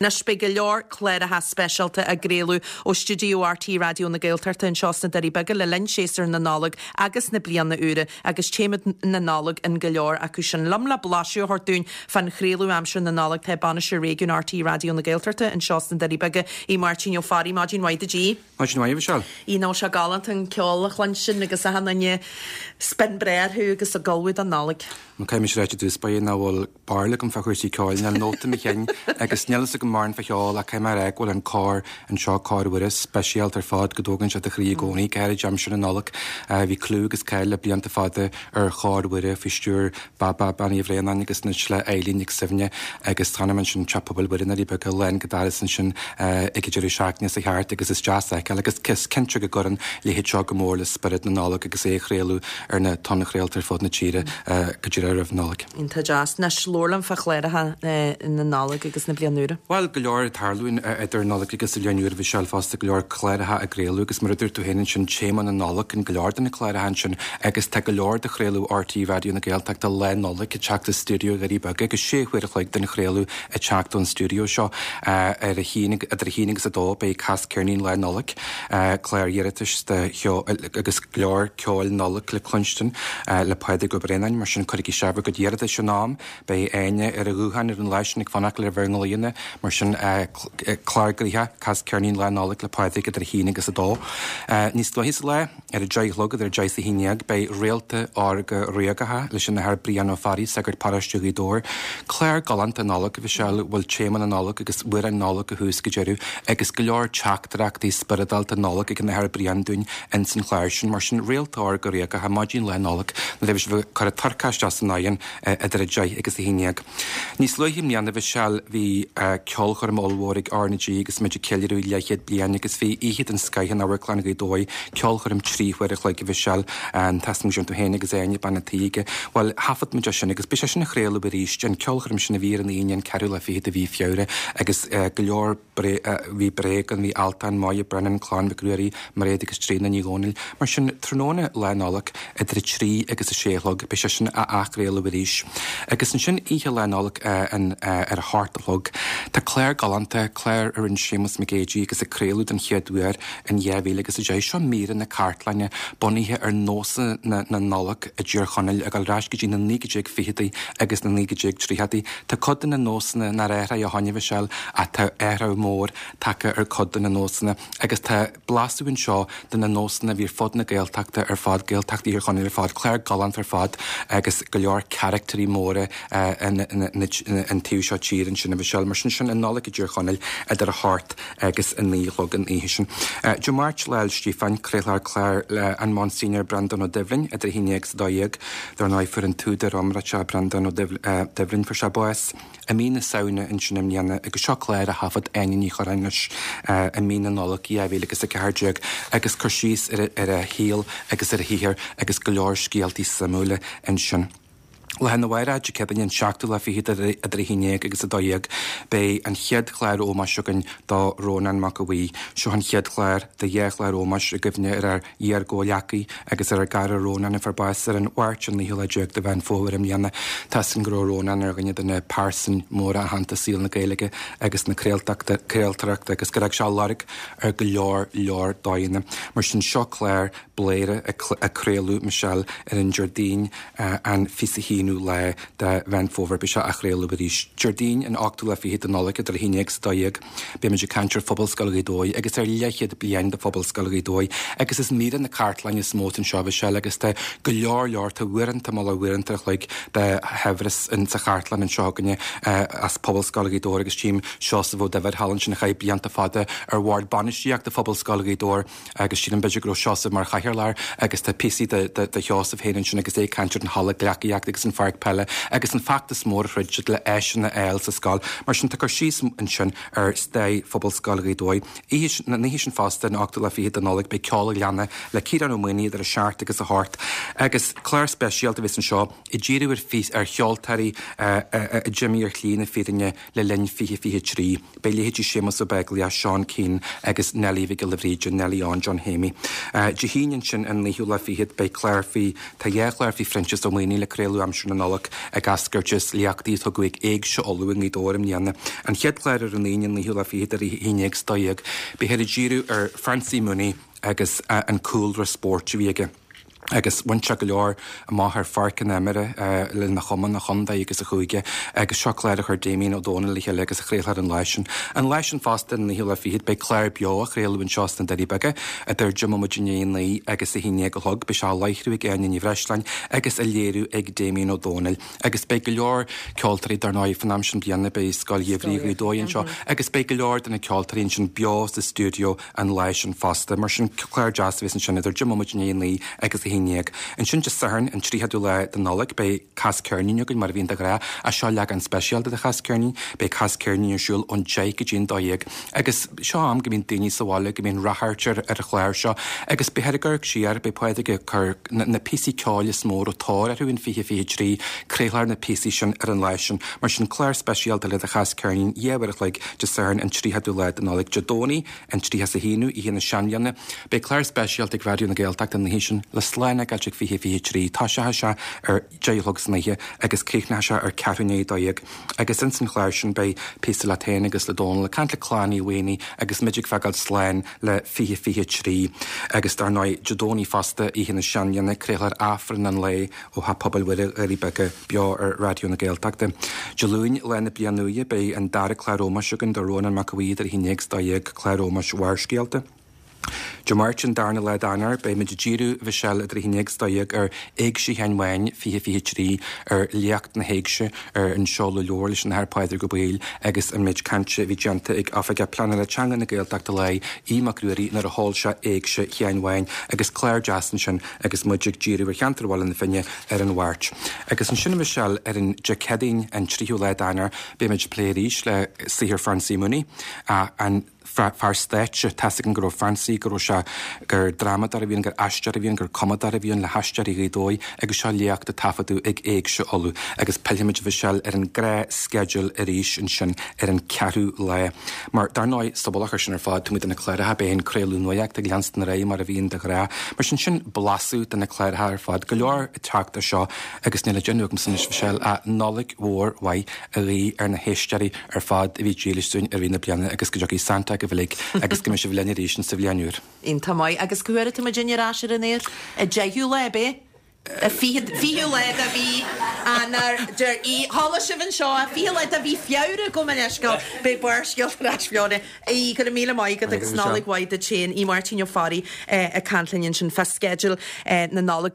Anois beidh go leor cláracha speisialta á gcraoladh ó stiúideo RTÉ Raidió na Gaeltachta anseo sna Doirí Beaga le linn séasúr na Nollag agus na Bliana Úire agus téama na Nollag in go leor acu sin. Liom le blaiseadh a thabhairt dúinn fán chraoladh aimsir na Nollag tá Bainisteoir Réigiúin RTÉ Raidió na Gaeltachta anseo sna Doirí Beaga, Aodh Máirtín Ó Fearraigh. Maidin mhaith duit Aodh. Maidin mhaith, a Mhichelle. Aodh, nach bhfuil sé galánta an ceol a chluinstin agus achan duine spion breá orthu agus ag ullmhú don Nollaig. Nó caithfidh mise a ráit i dtús báire nach bhfuil barúil agam fá chúrsaí ceoil, níl nóta i mo chinn agus níl fhios agam mórán fá cheol ach caithfidh mé a rá go bhfuil an cór anseo, Cór Mhuire, speisialta ar fad, go dtógann sé do chroí i gcónaí, go háirid aimsir na Nollag. Bhí clú agus cáil le blianta fada ar Chór Mhuire faoi stiúir Baba, Bean Uí Bhraonáin agus anois le Eilín Nic Suibhne agus chonaic mé ansin Teach Pobail Mhuire i nDoirí Beaga lán go doras ansin ag an deireadh seachtaine seo thart agus is deas a fheiceáil agus is cinnte go gcuireann a leithéid seo go mór le spiorad na Nollag agus é a chraoladh ar na tonnchraolta ar fud na tíre go díreach roimh Nollaig. Iontach deas. Anois, labhair liom fá chláracha na Nollag agus na Bliana Úire. Bhuel, go leor ag tarlú idir an Nollaig agus an Bhliain Úr, a Mhichelle, fosta, go leor cláracha á gcraoladh agus mar a dúirt tú féin ansin, téama na Nollag in go leor de na cláracha ansin agus tá go leor de chraoladh RTÉ Raidió na Gaeltachta Lá Nollag ag teacht as stiúideo Dhoirí Beaga agus sé huaire a chloig den chraoladh ag teacht ón stiúideo seo. Ar a haon, idir a haon agus a dó beidh Cas Ceirnín Lá Nollag, clár iarratais de cheol agus go leor ceoil Nollag le cluinstin le Pádraig Ó Braonáin, mar sin cuirigí isteach bhur gcuid iarratais in am. Beidh Áine ar an ghuthán ar an lá sin ag fanacht le bhur nglaonna, mar sin clár gnoitheach, Cas Ceirnín Lá Nollag le Pádraig idir a haon agus a dó. Níos luaithe sa lá, ar a deich a chlog, idir a deich is a haon dhéag, beidh Réalta Órga Ríogacha leis an Athair Brian Ó Fearraigh, sagart paróiste Ghaoth Dobhair. Clár galánta Nollag, a Mhichelle, a bhfuil téama na Nollag agus amhráin Nollag ó thús go deireadh agus go leor teachtaireachtaí spioradálta Nollag ag an Athair Brian dúinn ins an chlár sin. Mar sin, Réalta Órga Ríogacha, maidin Lá Nollag, nuair a bheidh sibh ag cur an turcaí isteach san oigheann idir 10 agus 11. Níos luaithe i mbliana, a Mhichelle, bhí ceolchoirm ollmhór ag R na G agus muid ag ceiliúradh leathchéad bliain agus bhí oíche den scoith in Amharclann Ghaoth Dobhair, ceolchoirm 3 huaire a chloig, a Mhichelle, tá 'fhios agam go raibh tú féin agus Áine, bean an tí aige. Bhuel, thaifead muid é sin agus beidh sé sin á chraoladh arís, an ceolchoirm sin a bhí ar an Aoine an ceathrú lá fichead de mhí Feabhra agus go leor Bhí Bréag ann, bhí Altan, Moya Brennan, Clann Mhic Ruairí, Mairéad agus Tríona Ní Dhomhnaill. Mar sin, tráthnóna Lá Nollag, idir 3 agus 6 a chlog, beidh sé sin á athchraoladh arís. Agus ansin, oíche Lá Nollag ar a hocht a chlog, tá clár galánta, clár a rinne Séamus Mac Géidigh agus a craoladh den chéad uair in 2010. Seo míreanna cartlainne bunaithe ar nósanna na Nollag i dTír Chonaill ag dul ar ais go dtí na 1920idí agus na 1930idí. Tá cuid de na nósanna nár athraigh ó shoin, a Mhichelle, ach tá athrú mór tagtha ar cuid de na nósanna agus tá blaiseadh anseo de na nósanna a bhí ar fud na Gaeltachta ar fad, Gaeltacht Thír Chonaill ar fad, clár galánta ar fad agus go leor caractairí móra an taobh seo tíre ansin, a Mhichelle. Mar sin, sin an Nollaig i dTír Chonaill idir a hocht agus a 9 a chlog an oíche sin. Dé Máirt, Lá 'le Stíofáin, craolfar clár le an Monsignor Breandán Ó Doibhlin idir 11 agus 12. Dar ndóigh, fuair an t-údar iomráiteach Breandán Ó Doibhlin, fuair sé bás i mí na Samhna ansin i mbliana agus seo clár a thaifead Áine Ní Churráin leis i mí na Nollag 2014 agus cur síos ar a shaol agus ar a shaothar agus go leor scéaltaí suimiúla ansin. Lá arna mhárach, Dé Céadaoine an seachtú lá fichead idir 11 agus 12, beidh an chéad chlár ómóis againn do Rónán Mac Aodha Bhuí. Seo an chéad chlár de dhá chlár ómóis i gcuimhne ar ár iar-gcomhghleacaí agus ar ár gcara Rónán a fuair bás ar an Mháirt an naoú lá déag de Mheán Fómhair i mbliana. Tá 'fhios againn go raibh Rónán ar dhuine de na pearsain mhóra aitheanta i saol na Gaeilge agus na craoltóireachta agus gur fhág sé lorg ar go leor leor dóigheanna. Mar sin seo clár Bladhaire a craoladh Michelle ar an Déardaoin an 21ú lá de Mheán Fómhair. Beidh sé á chraoladh arís Déardaoin an ochtú lá fichead de Nollaig idir 11 agus 12. Beimid ag caint ar Phobalscoil Ghaoth Dobhair agus ar leathchéad bliain de Phobalscoil Ghaoth Dobhair agus is míreanna cartlainne is mó atá anseo Michelle agus tá go leor leor, tá uaireanta, mullach uaireanta a chloig de shaibhreas in sa chartlann anseo againne as Pobalscoil Ghaoth Dobhair agus tchím Seosamh Ó Duibhir thall ansin a chaith blianta fada ar bhord bainistíochta Phobalscoil Ghaoth Dobhair. Agus sílim b'fhéidir go raibh Seosamh mar chathaoirleach agus tá píosaí de Sheosamh féin ansin agus é ag caint ar an halla gleacaíochta agus an pháirc peile agus an feachtas mór a throid siad le áiseanna a fháil sa scoil. Mar sin tá cur síos ansin ar stair Phobalscoil Ghaoth Dobhair. Oíche, an oíche sin fosta, an ochtú lá fichead de Nollaig, beidh Ceol an Ghleanna le Ciarán Ó Maonaigh idir a seacht agus a hocht agus clár speisialta a bheas anseo ag díriú ar ar cheoltóirí a d'imigh ar shlí na fírinne le linn 2023. Beidh leithéidí Séamus Ó Beaglaoich, Seán Keane agus Neilí Mhic Giolla Bhríde, Neilí Eoin John Shéimí. Dé hAoine ansin an naoú lá fichead beidh clár faoi, tá dhá chlár faoi Phroinsias Ó Maonaigh le craoladh aimsir na. séasúr na Nollag ag eascairt as léachtaí a tugadh ag Éigse Uladh i nGaoth Dobhair i mbliana. An chéad chlár ar an Aoine, an naoú lá fichead idir a haon déag is a dó dhéag, beifear ag díriú ar Francie Mooney agus an cúlra spóirt a bhí aige. Agus bhain sé go leor amach ar pháirc na himeartha lena chumann, a chontae agus a chúige agus seo clár a chuir Damien Ó Dónaill le chéile agus a chraolfar an lá sin. An lá sin fosta, an naoú lá fichead, beidh clár beo á chraoladh anseo sna Doirí Beaga idir deich mbomaite i ndiaidh a naoi agus a haon déag a chlog. Beidh sé á láithriú ag Áine Ní Bhreisleáin agus á léiriú ag Damien Ó Dónaill. Agus beidh go leor ceoltóirí, dar ndóigh, fan am sin bliana, beidh Scoil Gheimhridh Ghaoth Dobhair anseo agus beidh go leor de na ceoltóirí ansin beo sa stiúideo an lá sin fosta. Mar sin, clár deas a bheas ansin idir deich mbomaite i ndiaidh a naoi agus a haon dhéag. Ansin Dé Sathairn, an 30ú lá de Nollaig, beidh Cas Ceirnín againn, mar a bhíonn de ghnáth, ach seo leagán speisialta de Chas Ceirnín. Beidh Cas Ceirnín ar siúl ón deich go dtí an dó dhéag. Agus seo am go mbíonn daoine sa bhaile, go mbíonn ráchairt ar ar an chlár seo. Agus beifear ag amharc siar, beidh Pádraig ag cur na píosaí ceoil is mó a raibh tóir orthu in 2023, craolfar na píosaí sin ar an lá sin. Mar sin, clár speisialta le do Chas Ceirnín, dhá uair a chloig, Dé Sathairn an 30ú lá de Nollaig, Dé Domhnaigh an 31ú, Oíche na Seanbhliana. Beidh clár speisialta ag Raidió na Gaeltachta an oíche sin le slán a fhágáilt ag 2023. Toiseochaidh sé ar deich a chlog san oíche agus críochnóidh sé ar ceathrú i ndiaidh a dó dhéag. Agus ins an chlár sin beidh píosa leat féin agus le Dónal ag caint le Clann Uí Mhaonaigh agus muid ag fágáil slán le 2023. Agus dar ndóigh, Dé Domhnaigh fosta, Oíche na Seanbhliana, craolfar Aifreann an lae ó Theach Pobail Mhuire, Dhoirí Beaga, beo ar Raidió na Gaeltachta. Dé Luain, Lá na Bliana Úire, beidh an dara clár ómóis againn do Rónán Mac Aodha Bhuí idir 11 agus 12, clár ómóis Bharrscéalta. Dé Máirt, an darna lá d'Eanáir, beidh muid ag díriú, a Mhichelle, idir 11 agus 12 ar Éigse Sheáin Bháin 2023, ar léacht na hÉigse, ar an seoladh leabhair leis an Athair Pádraig Ó Baoill agus an méid cainte a bhí déanta ag Oifigeach Pleanála Teanga na Gaeltachta Láir, Aodh Mac Ruairí, nuair a sheol sé Éigse Sheáin Bháin agus clár deas ansin agus muid ag díriú ar cheantar Bhaile na Finne ar an Mháirt. Agus ansin, a Mhichelle, ar an Dé Céadaoin, an tríú lá d'Eanáir, beidh muid ag plé arís le saothar Francie Mooney, an fear stáitse. Tá's againn go raibh Francie, go raibh sé, gur drámadóir a bhí ann, gur aisteoir a bhí ann, gur cumadóir a bhí ann le hAisteoirí Ghaoth Dobhair agus seo léacht a taifeadadh ag Éigse Uladh. Agus pillfimid, a Mhichelle, ar an ngnáthsceideal arís ansin ar an ceathrú lá. Mar, dar ndóigh, sa mhullach air sin ar fad, taobh amuigh de na cláracha, beidh an craoladh nuachta ag leanstan ar aghaidh mar a bhíonn de ghnáth. Mar sin, sin blaiseadh de na cláracha ar fad. Go leor ag teacht as seo agus níl le déanamh agamsa anois, a Mhichelle, ach Nollaig mhór mhaith a ghuí ar na héisteoirí ar fad a bhí dílis dúinn i rith na bliana agus go dtiocfaidh Santa agaibh uilig agus go mbeidh sibh linn arís insa bhliain úr. Iontach maith. Agus cá huair atá muid ar ais ar an aer? An deichiú lá, ab é? An fichiú lá de mhí Eanáir, deir Aodh. Chuala sibh anseo é, fichiú lá de mhí Feabhra, gabh mo leithscéal, beidh Barrscéalta ar ais Fiona. Aodh, go raibh míle maith agat agus Nollaig mhaith duit féin. Aodh Máirtín Ó Fearraigh ag caint linn ansin fá sceideal na Nollag.